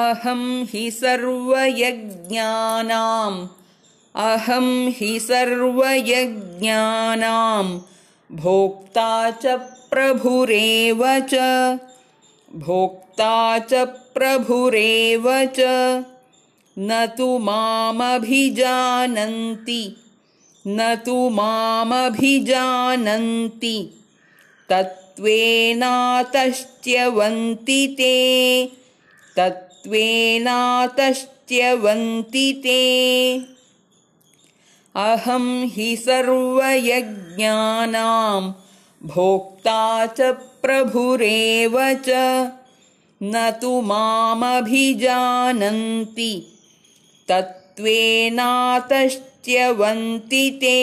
अहं हि सर्वयज्ञानां भोक्ता च प्रभुरेव च न तु मामभिजानन्ति तत्त्वेनातश्च्यवन्ति ते अहं हि सर्वयज्ञानां भोक्ता च प्रभुरेव च न तु मामभिजानन्ति तत्त्वेनातश्च्यवन्ति ते।